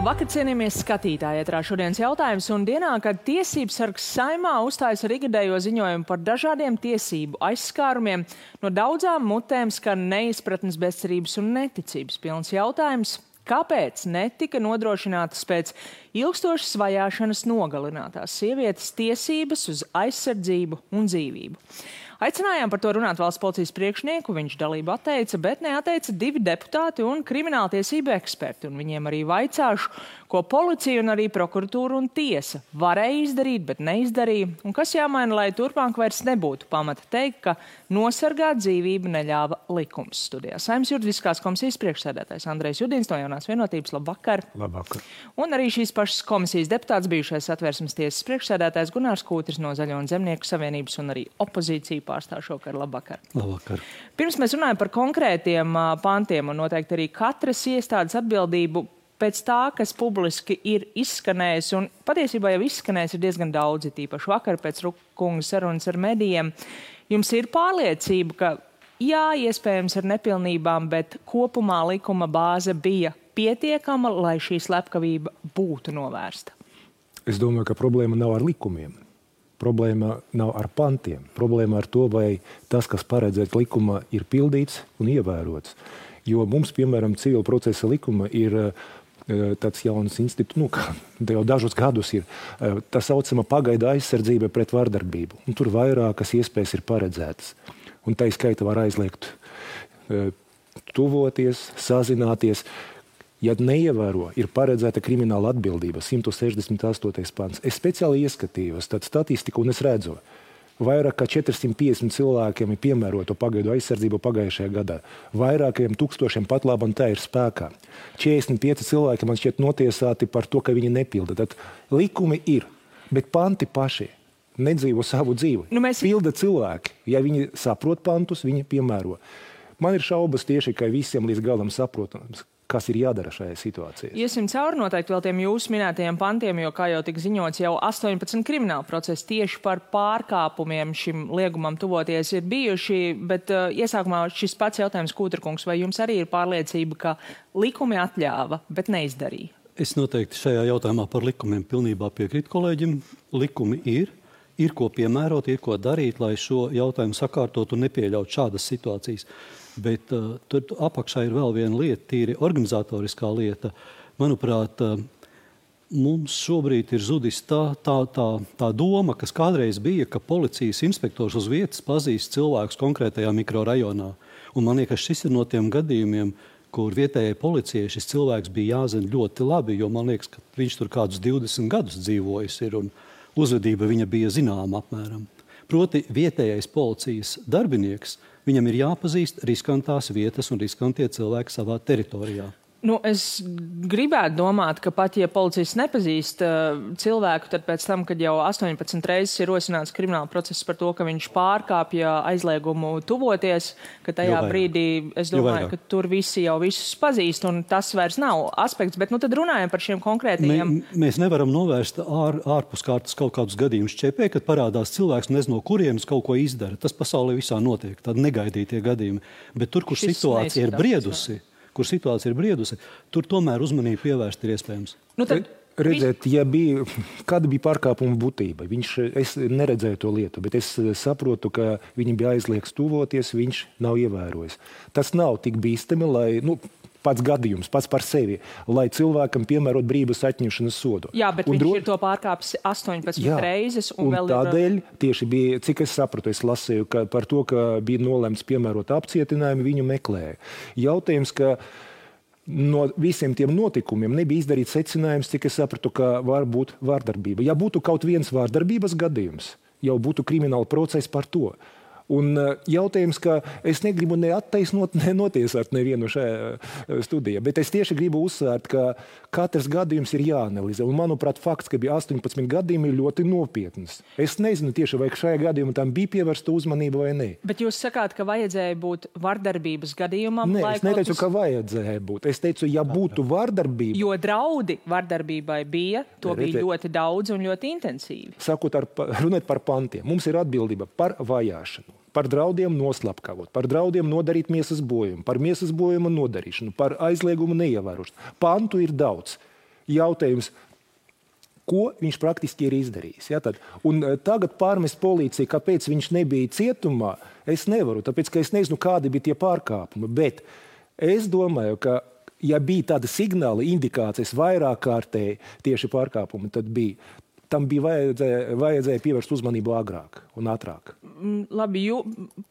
Labvakar, cienījamies skatītāji. Ētrā šodienas jautājums un dienā, kad tiesības sargs Saeimā uzstājas ar ikgadējo ziņojumu par dažādiem tiesību aizskārumiem, no daudzām mutēm skan neizpratnes, bezcerības un neticības pilns jautājums. Kāpēc netika nodrošinātas pēc ilgstošas vajāšanas nogalinātās sievietes tiesības uz aizsardzību un dzīvību? Aicinājām par to runāt valsts policijas priekšnieku, viņš dalību atteica, bet neatteica 2 deputāti un krimināltiesību eksperti. Un viņiem arī vaicāšu, ko policija un arī prokuratūra un tiesa varēja izdarīt, bet neizdarīja. Un kas jāmaina, lai turpmāk vairs nebūtu pamata teikt, ka nosargāt dzīvību neļāva likums. Studijā Saeimas juridiskās komisijas priekšsēdētājs Andrejs Judins no Jaunās vienotības. Labvakar. Labvakar. Un arī šīs pašas komisijas deputāts, bijušais Satversmes tiesas priekšsēdētājs Gunārs Kūtris no Zaļo un Zemnieku savienības un arī opozīciju pārstāv šokar. Labvakar. Labvakar. Pirms mēs runājam par konkrētiem pantiem un noteikti arī katras iestādes atbildību pēc tā, kas publiski ir izskanējis, un patiesībā jau izskanējis ir diezgan daudzi, tīpaši vakar pēc Rukunga sarunas ar medijiem. Jums ir pārliecība, ka jā, iespējams ar nepilnībām, bet kopumā likuma bāze bija pietiekama, lai šī slepkavība būtu novērsta? Es domāju, ka problēma nav ar likumiem. Problēma nav ar pantiem. Problēma ar to, vai tas, kas paredzēts likumā, ir pildīts un ievērots. Jo mums, piemēram, civila procesa likuma ir tāds jauns institūts, jau dažus gadus ir tā saucama pagaidu aizsardzība pret vardarbību. Un tur vairākas iespējas ir paredzētas. Un tā skaita var aizliegt tuvoties, sazināties. Ja neievēro, ir paredzēta krimināla atbildība, 168. pants. Es speciāli ieskatījos tādu statistiku un es redzu, vairāk kā 450 cilvēkiem ir piemēroto pagaidu aizsardzību pagājušajā gadā. Vairākiem tūkstošiem pat labam tā ir spēkā. 45 cilvēki man šķiet notiesāti par to, ka viņi nepilda. Tad likumi ir, bet panti paši nedzīvo savu dzīvi. Pilda cilvēki. Ja viņi saprot pantus, viņi piemēro. Man ir šaubas tieši, ka visiem līdz galam saprotams, kas ir jādara šajā situācijā. Iesim cauri noteikti vēl tiem jūsu minētajiem pantiem, jo, kā jau tika ziņots, jau 18 krimināla procesi tieši par pārkāpumiem šim liegumam tuvoties ir bijuši, bet iesākumā šis pats jautājums, Kūterkungs, vai jums arī ir pārliecība, ka likumi atļāva, bet neizdarīja? Es noteikti šajā jautājumā par likumiem pilnībā piekrītu kolēģim. Likumi ir ko piemērot, ir ko darīt, lai šo jautājumu sakārtot un nepieļaut šādas situācijas. Bet tur apakšā ir vēl viena lieta, tīri organizatoriskā lieta. Manuprāt, mums šobrīd ir zudis tā doma, kas kādreiz bija, ka policijas inspektors uz vietas pazīst cilvēkus konkrētajā mikrorajonā. Un man liekas, šis ir no tiem gadījumiem, kur vietējai policijai šis cilvēks bija jāzina ļoti labi, jo man liekas, ka viņš tur kādus 20 gadus dzīvojis ir un uzvedība viņa bija zināma apmēram. Proti vietējais policijas darbinieks, viņam ir jāpazīst riskantās vietas un riskantie cilvēki savā teritorijā. Es gribētu domāt, ka pat, ja policists nepazīst cilvēku, tad pēc tam, kad jau 18 reizes ir rosināts krimināla process par to, ka viņš pārkāpja aizliegumu tuvoties, ka tajā brīdī, es domāju, ka tur visi jau visus pazīst, un tas vairs nav aspekts, bet tad runājam par šiem konkrētajiem. Mēs nevaram novērst ārpus kārtas kaut kādus gadījumus ČP, kad parādās cilvēks, nezinu, no kurienes kaut ko izdara. Tas pasaulē visā notiek, tādi negaidītie gadījumi. Bet tur, kur situācija ir briedusi, tur tomēr uzmanību pievērst ir iespējams. Redzēt, kāda bija pārkāpuma būtība. Es neredzēju to lietu, bet es saprotu, ka viņam bija aizliegts tuvoties, viņš nav ievērojis. Tas nav tik bīstami, lai pats gadījums, pats par sevi, lai cilvēkam piemērot brīvības atņemšanas sodu. Jā, bet viņš ir to pārkāpis 18 reizes. Un vēl tādēļ tieši bija, cik es sapratu, es lasīju par to, ka bija nolemts piemērot apcietinājumu, viņu meklēja. Jautājums, ka no visiem tiem notikumiem nebija izdarīts secinājums, cik es sapratu, ka var būt vārdarbība. Ja būtu kaut viens vārdarbības gadījums, jau būtu krimināla process par to. Un jautājums, ka es negribu neattaisnot, nenotiesāt nevienu šajā studijā, bet es tieši gribu uzsvērt, ka katrs gadījums ir jāanalizē. Un, manuprāt, fakts, ka bija 18 gadījumi, ir ļoti nopietns. Es nezinu tieši, vai šajā gadījumā tam bija pievērsta uzmanība vai ne. Bet jūs sakāt, ka vajadzēja būt vardarbības gadījumam? Nē, es neteicu, ka vajadzēja būt. Es teicu, ja būtu vardarbība. Jo draudi vardarbībai bija, to bija ļoti daudz un ļoti intensīvi. Runāt par pantiem. Mums ir atbildība par vajāšanu. Par draudiem noslapkavot, par draudiem nodarīt miesas bojumu, par miesas bojuma nodarīšanu, par aizliegumu neievērošanu. Pantu ir daudz. Jautājums, ko viņš praktiski ir izdarījis. Ja, tad. Un tagad pārmest policiju, kāpēc viņš nebija cietumā, es nevaru, tāpēc, ka es nezinu, kādi bija tie pārkāpumi. Bet es domāju, ka, ja bija tāda signāla, indikācijas vairāk kārtēji tieši pārkāpumi, tad tam bija vajadzēja pievērst uzmanību agrāk un ātrāk. Labi,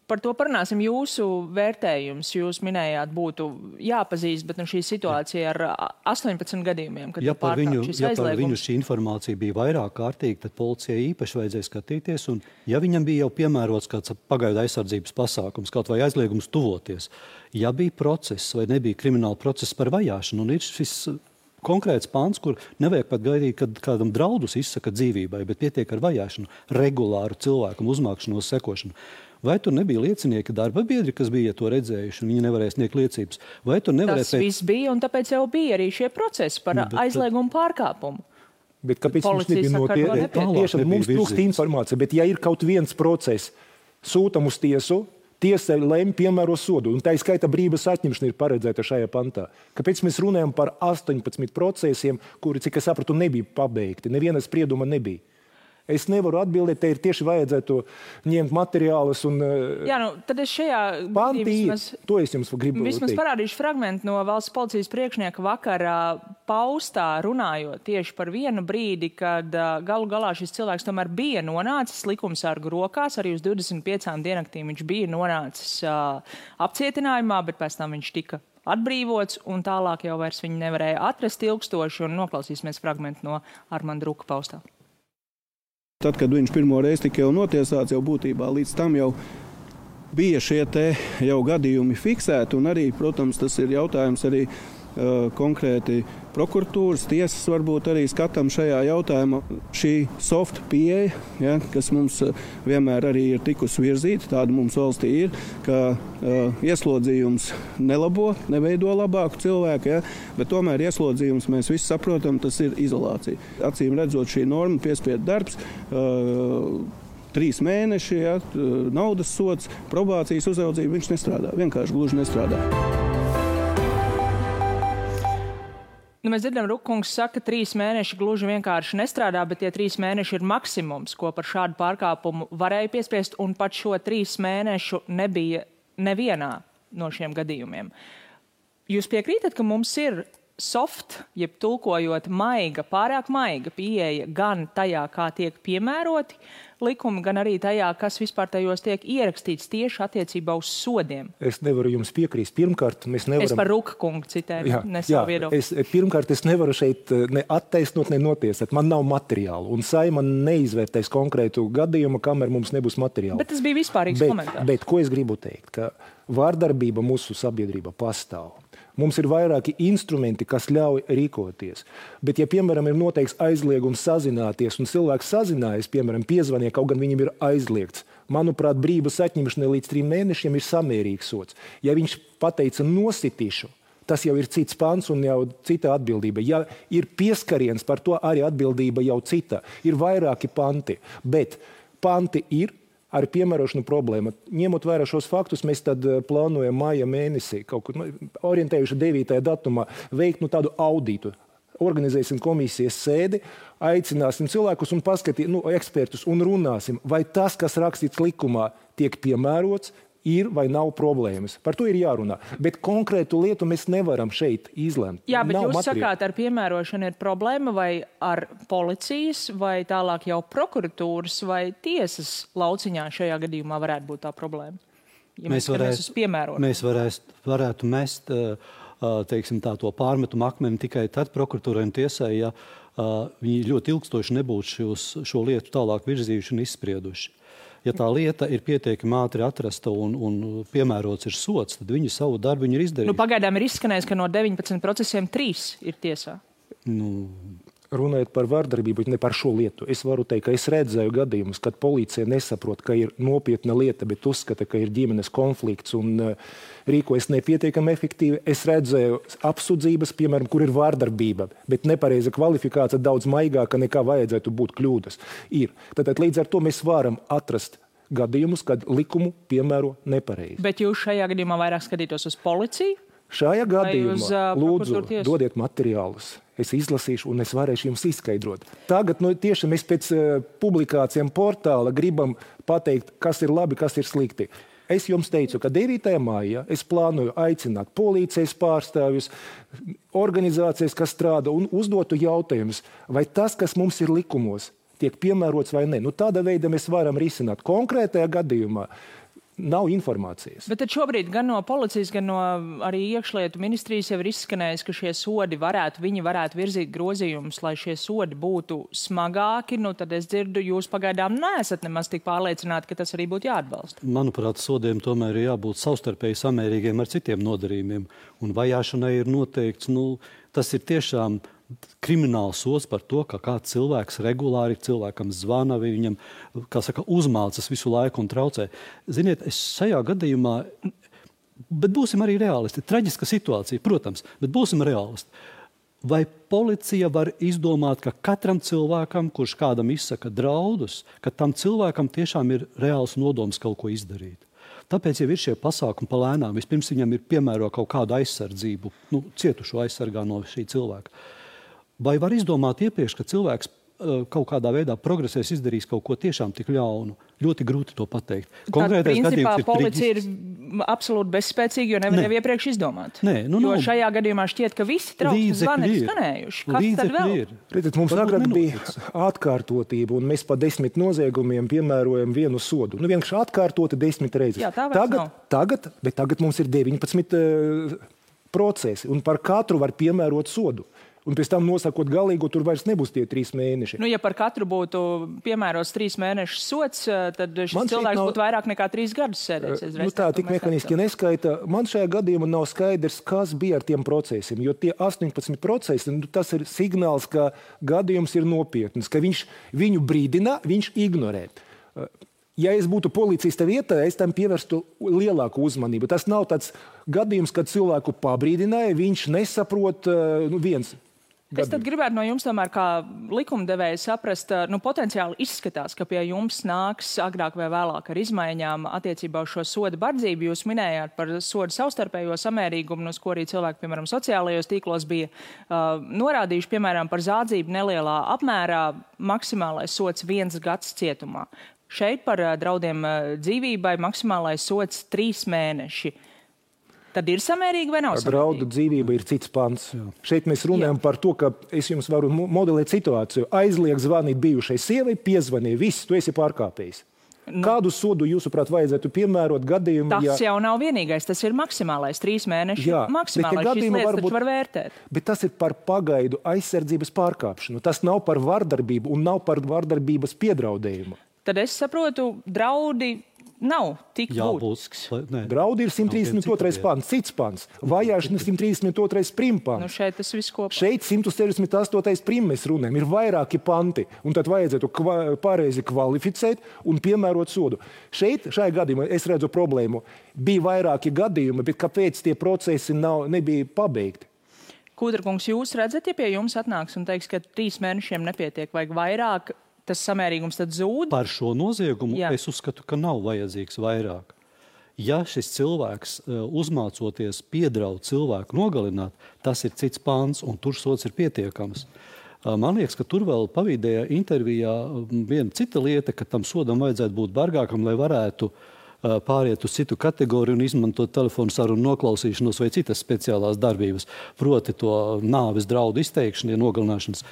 par to parunāsim. Jūsu vērtējums, jūs minējāt, būtu jāpazīst, bet šī situācija ar 18 gadījumiem, kad par viņu šī informācija bija vairāk kārtīga, tad policijai īpaši vajadzēja skatīties, un ja viņam bija jau piemērots kāds pagaidu aizsardzības pasākums, kaut vai aizliegums tuvoties, ja bija process vai nebija krimināla process par vajāšanu, un ir šis konkrēts pāns, kur nevajag pat gaidīt, kad kādam draudus izsaka dzīvībai, bet pietiek ar vajāšanu, regulāru cilvēkam uzmākšanos, sekošanu. Vai tur nebija liecinieki darba biedri, kas bija to redzējuši, un viņi nevarēja sniegt liecības? Vai tur nevarēja... Tas viss bija, un tāpēc jau bija arī šie procesi par aizliegumu pārkāpumu. Bet kāpēc mums nebija notiek? Tieši mums trūkst informācija, bet ja ir kaut viens process, sūtam uz tiesu, tiesa lem piemēro sodu, un tā skaita brīvības atņemšana ir paredzēta šajā pantā. Kāpēc mēs runājam par 18 procesiem, kuri, cik es sapratu, nebija pabeigti? Neviena sprieduma nebija. Es nevaru atbildēt, te ir tieši vajadzētu ņemt materiālus un... Jā, tad es šajā... To es jums gribu vismaz parādīšu fragmentu no valsts policijas priekšnieka vakarā paustā runājot tieši par vienu brīdi, kad galu galā šis cilvēks tomēr bija nonācis likumsargu rokās, arī uz 25 dienaktīm viņš bija nonācis apcietinājumā, bet pēc tam viņš tika atbrīvots, un tālāk jau vairs viņu nevarēja atrast ilgstoši, un noklausīsimies fragmentu no Armanda Ruka paustā. Tad, kad viņš pirmo reizi tika jau notiesāts, jau būtībā līdz tam jau bija šie te jau gadījumi fiksēti, un arī, protams, tas ir jautājums arī konkrēti prokuratūras, tiesas varbūt arī skatām šajā jautājumā. Šī soft pieeja, ja, kas mums vienmēr arī ir tikusi virzīta, tāda mums valstī ir, ka ieslodzījums nelabo, neveido labāku cilvēku, ja, bet tomēr ieslodzījums mēs visi saprotam, tas ir izolācija. Acīm redzot šī norma, piespiedu darbs, 3 mēneši, ja, naudas sods, probācijas uzraudzība, viņš nestrādā, vienkārši gluži nestrādā. Mēs dzirdam, Rukungs saka, 3 mēneši gluži vienkārši nestrādā, bet tie 3 mēneši ir maksimums, ko par šādu pārkāpumu varēja piespiest, un pat šo 3 mēnešu nebija nevienā no šiem gadījumiem. Jūs piekrītat, ka mums ir soft, jeb tulkojot maiga, pārāk maiga pieeja gan tajā, kā tiek piemēroti likumi, gan arī tajā, kas vispār tajos tiek ierakstīts tieši attiecībā uz sodiem? Es nevaru jums piekrīst. Pirmkārt, mēs nevaram... Es par Ruka kungu citēju, ne savu viedokli. Pirmkārt, es nevaru šeit ne attaisnot, ne notiesāt. Man nav materiālu, un Saeima neizvērtēs konkrētu gadījumu, kamēr mums nebūs materiālu. Bet tas bija vispārīgs komentārs. Bet ko es gribu teikt? Ka vārdarbība mūsu sabiedrība pastāv. Mums ir vairāki instrumenti, kas ļauj rīkoties. Bet, ja, piemēram, ir noteikts aizliegums sazināties, un cilvēks sazinājas, piemēram, piezvanīja, kaut gan viņam ir aizliegts, manuprāt, brīvības atņemšana līdz 3 mēnešiem ir samērīgs sods. Ja viņš pateica nositīšu, tas jau ir cits pants un jau cita atbildība. Ja ir pieskariens, par to arī atbildība jau cita. Ir vairāki panti, bet panti ir ar piemērošanu problēma. Ņemot vērā šos faktus, mēs tad plānojam māja mēnesī, kaut kur orientējuši 9. datumā, veikt tādu auditu. Organizēsim komisijas sēdi, aicināsim cilvēkus un paskatīt, ekspertus un runāsim, vai tas, kas rakstīts likumā, tiek piemērots, ir vai nav problēmas. Par to ir jārunā. Bet konkrētu lietu mēs nevaram šeit izlemt. Jā, bet jūs sakāt, ar piemērošanu ir problēma vai ar policijas, vai tālāk jau prokuratūras vai tiesas lauciņā šajā gadījumā varētu būt tā problēma? Ja mēs varētu mest teiksim, to pārmetumu akmeni tikai tad prokuratūrai un tiesai, ja viņi ļoti ilgstoši nebūtu šo lietu tālāk virzījuši un izsprieduši. Ja tā lieta ir pietiekami ātri atrasta un piemērots ir sods, tad viņi savu darbu ir izdarījuši. Pagaidām ir izskanējis, ka no 19 procesiem 3 ir tiesā. Runājot par vārdarbību, ne par šo lietu. Es varu teikt, ka es redzēju gadījumus, kad policija nesaprot, ka ir nopietna lieta, bet uzskata, ka ir ģimenes konflikts un rīkojas nepietiekami efektīvi. Es redzēju apsūdzības, piemēram, kur ir vārdarbība, bet nepareiza kvalifikācija daudz maigāka nekā vajadzētu būt kļūdas. Tātad līdz ar to mēs varam atrast gadījumus, kad likumu piemēro nepareizi. Bet jūs šajā gadījumā vairāk skatītos uz policiju? Šajā gadījumā lūdzu dodiet materiālus. es izlasīšu un es varēšu jums izskaidrot. Tagad tieši mēs pēc publikācijām portāla gribam pateikt, kas ir labi, kas ir slikti. Es jums teicu, ka 9. maijā es plānoju aicināt policijas pārstāvjus, organizācijas, kas strādā, un uzdotu jautājumus, vai tas, kas mums ir likumos, tiek piemērots vai ne. Tāda veida mēs varam risināt. Konkrētajā gadījumā nav informācijas. Bet tad šobrīd gan no policijas, gan no arī iekšlietu ministrijas jau ir izskanējis, ka šie sodi viņi varētu virzīt grozījumus, lai šie sodi būtu smagāki. Tad es dzirdu, jūs pagaidām neesat nemaz tik pārliecināti, ka tas arī būtu jāatbalsta. Manuprāt, sodiem tomēr ir jābūt savstarpēji samērīgiem ar citiem nodarījumiem. Un vajāšanai ir noteikts, tas ir tiešām krimināls sods par to, ka kāds cilvēks regulāri cilvēkam zvana, viņam, uzmācas visu laiku un traucē. Ziniet, es šajā gadījumā, bet būsim arī realisti, traģiska situācija, protams, bet būsim realisti. Vai policija var izdomāt, ka katram cilvēkam, kurš kādam izsaka draudus, ka tam cilvēkam tiešām ir reāls nodoms kaut ko izdarīt? Tāpēc jau ir šie pasākumi palēnām. Vispirms viņam ir piemēro kaut kādu aizsardzību, cietušo aizsargā no šī cilvēka. Vai var izdomāt iepriekš, ka cilvēks kaut kādā veidā progresēs, izdarīs kaut ko tiešām tik ļaunu? Ļoti grūti to pateikt. Konkrētais principā policija ir absolūti bezspēcīga, jo nevar jau iepriekš izdomāt. Jo šajā gadījumā šķiet, ka visi trauksmes zvani ir skanējuši. Kas tad vēl? Redziet, mums agrāk bija atkārtotība, un mēs pa 10 noziegumiem piemērojam vienu sodu. Vienkārši atkārtoti 10 reizes. Jā, tagad mums ir 19 procesi, un par katru var piemērot sodu. Un pēc tam nosakot galīgo, tur vairs nebūs tie 3 mēneši. Ja par katru būtu piemērots 3 mēnešu sots, tad šis cilvēks būtu vairāk nekā 3 gadus sēdēs. Tā tik mehaniski neskaita. Man šajā gadījumā nav skaidrs, kas bija ar tiem procesiem, jo tie 18 procesi, tas ir signāls, ka gadījums ir nopietns, ka viņš viņu brīdina, viņš ignorē. Ja es būtu policista vietā, es tam pievērstu lielāku uzmanību. Tas nav tāds gadījums, kad cilvēku pabrīdināja, viņš nesaprot viens. Es tad gribētu no jums tomēr kā likumdevēja saprast, potenciāli izskatās, ka pie jums nāks agrāk vai vēlāk ar izmaiņām attiecībā uz šo soda bardzību. Jūs minējāt par sodu savstarpējo samērīgumu, uz ko arī cilvēki, piemēram, sociālajos tīklos bija norādījuši, piemēram, par zādzību nelielā apmērā maksimālais sods 1 gads cietumā. Šeit par draudiem dzīvībai maksimālais sods 3 mēneši. Tad ir samērīgi vai nav samērīgi? Draudu dzīvība ir cits pants. Šeit mēs runājam par to, ka es jums varu modelēt situāciju. Aizliek zvanīt bijušai sievai, piezvanīja, viss, tu esi pārkāpējis. Kādu sodu, jūsuprāt, vajadzētu piemērot gadījumu? Tas jau nav vienīgais, tas ir maksimālais 3 mēneši. Maksimālais šīs lietas taču var vērtēt. Bet tas ir par pagaidu aizsardzības pārkāpšanu. Tas nav par vardarbību un nav par vardarbības piedraudējumu. Tad es saprotu, draudi nav tik būtisks. Draudi ir 132. pants, cits pants. Vajāšana 132. primpants. Šeit tas viss kopā. Šeit 168. prim mēs runājam. Ir vairāki panti. Un tad vajadzētu pareizi kvalificēt un piemērot sodu. Šajā gadījumā es redzu problēmu. Bija vairāki gadījumi, bet kāpēc tie procesi nebija pabeigti? Kūdrakungs, jūs redzat, ja pie jums atnāks un teiks, ka 3 mēnešiem nepietiek, vajag vairāk, tas samērīgums tad zūd? Par šo noziegumu es uzskatu, ka nav vajadzīgs vairāk. Ja šis cilvēks uzmācoties piedraud cilvēku nogalināt, tas ir cits pāns un tur sods ir pietiekams. Man liekas, ka tur vēl pavīdējā intervijā viena cita lieta, ka tam sodam vajadzētu būt bargākam, lai varētu pāriet uz citu kategoriju un izmantot telefonu sarunu noklausīšanos vai citas speciālās darbības. Proti to nāves draudu izteikšanu, nogalināšanas.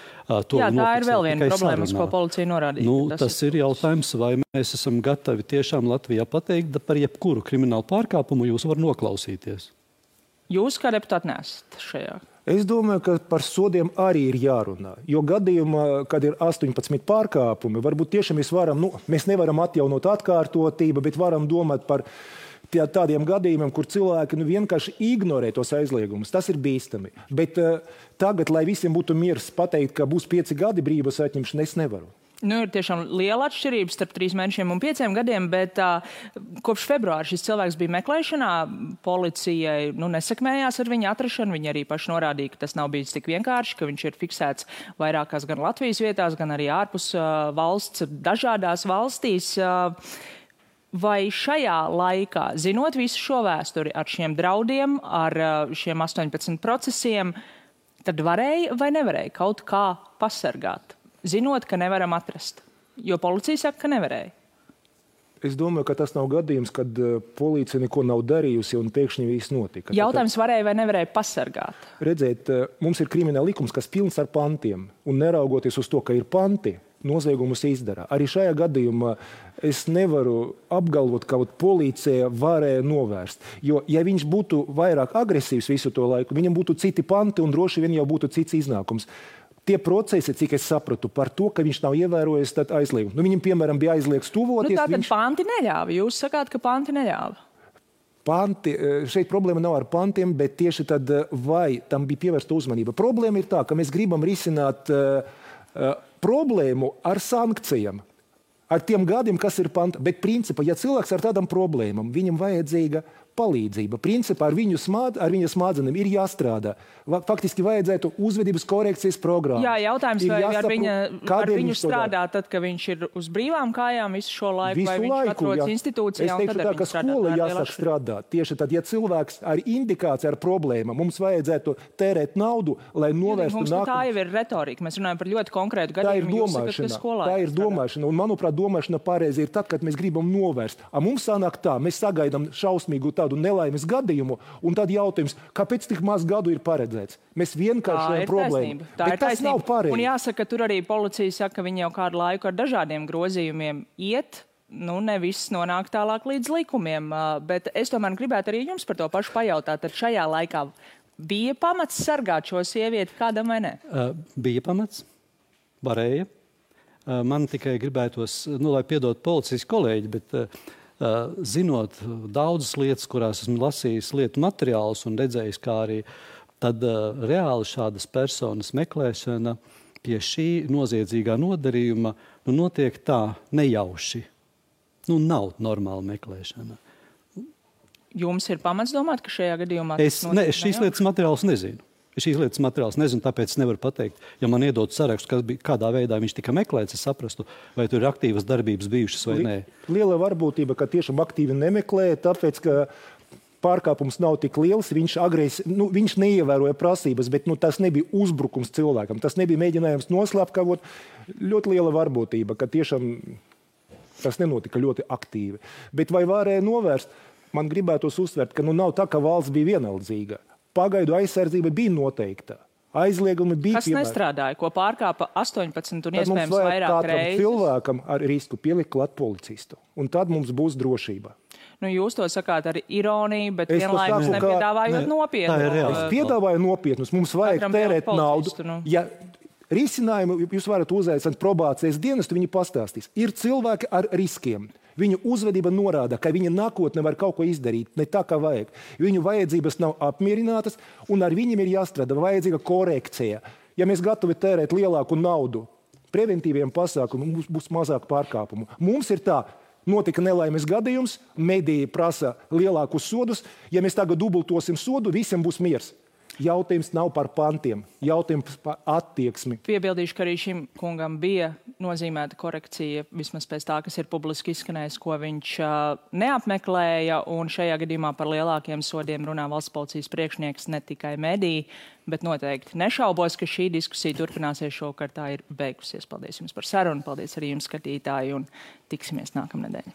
Tā ir vēl viena problēma, uz ko policija norādīja. Tas ir jautājums, vai mēs esam gatavi tiešām Latvijā pateikt, par jebkuru kriminālu pārkāpumu jūs var noklausīties. Jūs kā deputāti nesat šajā? Es domāju, ka par sodiem arī ir jārunā. Jo gadījumā, kad ir 18 pārkāpumi, varbūt tiešām mēs nevaram atjaunot atkārtotību, bet varam domāt par tādiem gadījumiem, kur cilvēki vienkārši ignorē tos aizliegumus. Tas ir bīstami. Bet tagad, lai visiem būtu miers pateikt, ka būs 5 gadi brīvības atņemšana, es nevaru. Ir tiešām liela atšķirība starp 3 mēnešiem un 5 gadiem, bet kopš februāra šis cilvēks bija meklēšanā. Policijai nesakmējās ar viņa atrašanu. Viņi arī paši norādīja, ka tas nav bijis tik vienkārši, ka viņš ir fiksēts vairākās gan Latvijas vietās, gan arī ārpus valsts, dažādās valstīs. Vai šajā laikā, zinot visu šo vēsturi ar šiem draudiem, ar šiem 18 procesiem, Tad varēja vai nevarēja kaut kā pasargāt, zinot, ka nevaram atrast? Jo policija saka, ka nevarēja. Es domāju, ka tas nav gadījums, kad policija neko nav darījusi un pēkšņi viss notika. Jautājums varēja vai nevarēja pasargāt? Redziet, mums ir krimināla likums, kas pilns ar pantiem. Un neraugoties uz to, ka ir panti, noziegumus izdara. Arī šajā gadījumā es nevaru apgalvot, ka policija varēja novērst. Jo, ja viņš būtu vairāk agresīvs visu to laiku, viņam būtu citi panti un droši vien jau būtu cits iznākums. Tie procesi, cik es sapratu, par to, ka viņš nav ievērojis aizliegumu. Viņam, piemēram, bija aizliegts tuvoties. Tātad panti neļāva. Jūs sakāt, ka panti neļāva. Panti, šeit problēma nav ar pantiem, bet tieši tad, vai tam bija pievērsta uzmanība. Problēma ir tā, ka mēs gribam risināt problēmu ar sankcijām, ar tiem gadiem, kas ir panti. Bet principā, ja cilvēks ar tādām problēmām, viņam vajadzīga palīdzība. Principā ar viņa smadzenēm ir jāstrādā. Faktiski vajadzētu uzvedības korekcijas programmu. Jā, jautājums, vai ar viņu strādā tad, kad viņš ir uz brīvām kājām visu šo laiku, vai viņš atrodas institūcijā? Es teikšu tā, ka skola jāsāk strādāt. Tieši tad, ja cilvēks ar indikāciju, ar problēmu, mums vajadzētu tērēt naudu, lai novērstu nākotnē. Tā jau ir retorika. Mēs runājam par ļoti konkrētu gadījumu. Tā ir domāšana. Un, manuprāt, domāšana pareizi ir tad, kad mēs gribam novērst. Mums sanāk tā, mēs sagaidām šausmīgu tādu nelaimes gadījumu, un tad jautājums, kāpēc tik maz gadu ir paredzēts? Mēs vienkārši problēmu. Bet tas nav pareizi. Un jāsaka, tur arī policija saka, ka viņi jau kādu laiku ar dažādiem grozījumiem iet, nevis nonāk tālāk līdz likumiem. Bet es tomēr gribētu arī jums par to pašu pajautāt. Tad šajā laikā bija pamats sargāt šo sievieti kādam vai ne? Bija pamats. Varēja. Man tikai gribētos, lai piedod policijas kolēģi, bet zinot daudzas lietas, kurās esmu lasījis lietu materiālus un redzējis, kā arī tad reāli šādas personas meklēšana pie šī noziedzīgā nodarījuma notiek tā nejauši. Nav normāla meklēšana. Jums ir pamats domāt, ka šajā gadījumā... Es šīs lietas materiālus nezinu. Tāpēc nevaru pateikt. Ja man iedod sarakstu, kādā veidā viņš tika meklēts, es saprastu, vai tur ir aktīvas darbības bijušas vai nē. Liela varbūtība, ka tiešām aktīvi nemeklē, tāpēc, ka pārkāpums nav tik liels, viņš neievēroja prasības, bet tas nebija uzbrukums cilvēkam, tas nebija mēģinājums noslēpkavot. Ļoti liela varbūtība, ka tiešām tas nenotika ļoti aktīvi. Bet vai varēja novērst? Man gribētos uzsvērt, ka nav tā, ka valsts bija vienaldzīga. Pagaidu aizsardzība bija noteikta. Aizliegumi bija piemēram. Kas nestrādāja, ko pārkāpa 18 un iespējams vairāk reizes? Cilvēkam ar risku pielikt klāt policistu. Un tad mums būs drošība. Jūs to sakāt ar ironiju, bet vienlaikus nepiedāvājot nopietnu. Es piedāvāju nopietnus. Mums vajag tērēt naudu. Ja risinājumu jūs varat uzaicināt probācijas dienestu, viņi pastāstīs. Ir cilvēki ar riskiem. Viņu uzvedība norāda, ka viņa nākotnē var kaut ko izdarīt, ne tā, kā vajag. Viņu vajadzības nav apmierinātas, un ar viņiem ir jāstrādā vajadzīga korekcija. Ja mēs gatavi tērēt lielāku naudu preventīviem pasākumiem, mums būs mazāk pārkāpumu. Mums ir tā, notika nelaimes gadījums, mediji prasa lielākus sodus. Ja mēs tagad dubultosim sodu, visiem būs miers. Jautājums nav par pantiem, jautājums par attieksmi. Piebildīšu, ka arī šim kungam bija nozīmēta korekcija, vismaz pēc tā, kas ir publiski izskanējis, ko viņš neapmeklēja, un šajā gadījumā par lielākiem sodiem runā valsts policijas priekšnieks, ne tikai mediji, bet noteikti nešaubos, ka šī diskusija turpināsies šovakar, tā ir beigusies. Paldies jums par sarunu, paldies arī jums, skatītāji, un tiksimies nākamnedēļ.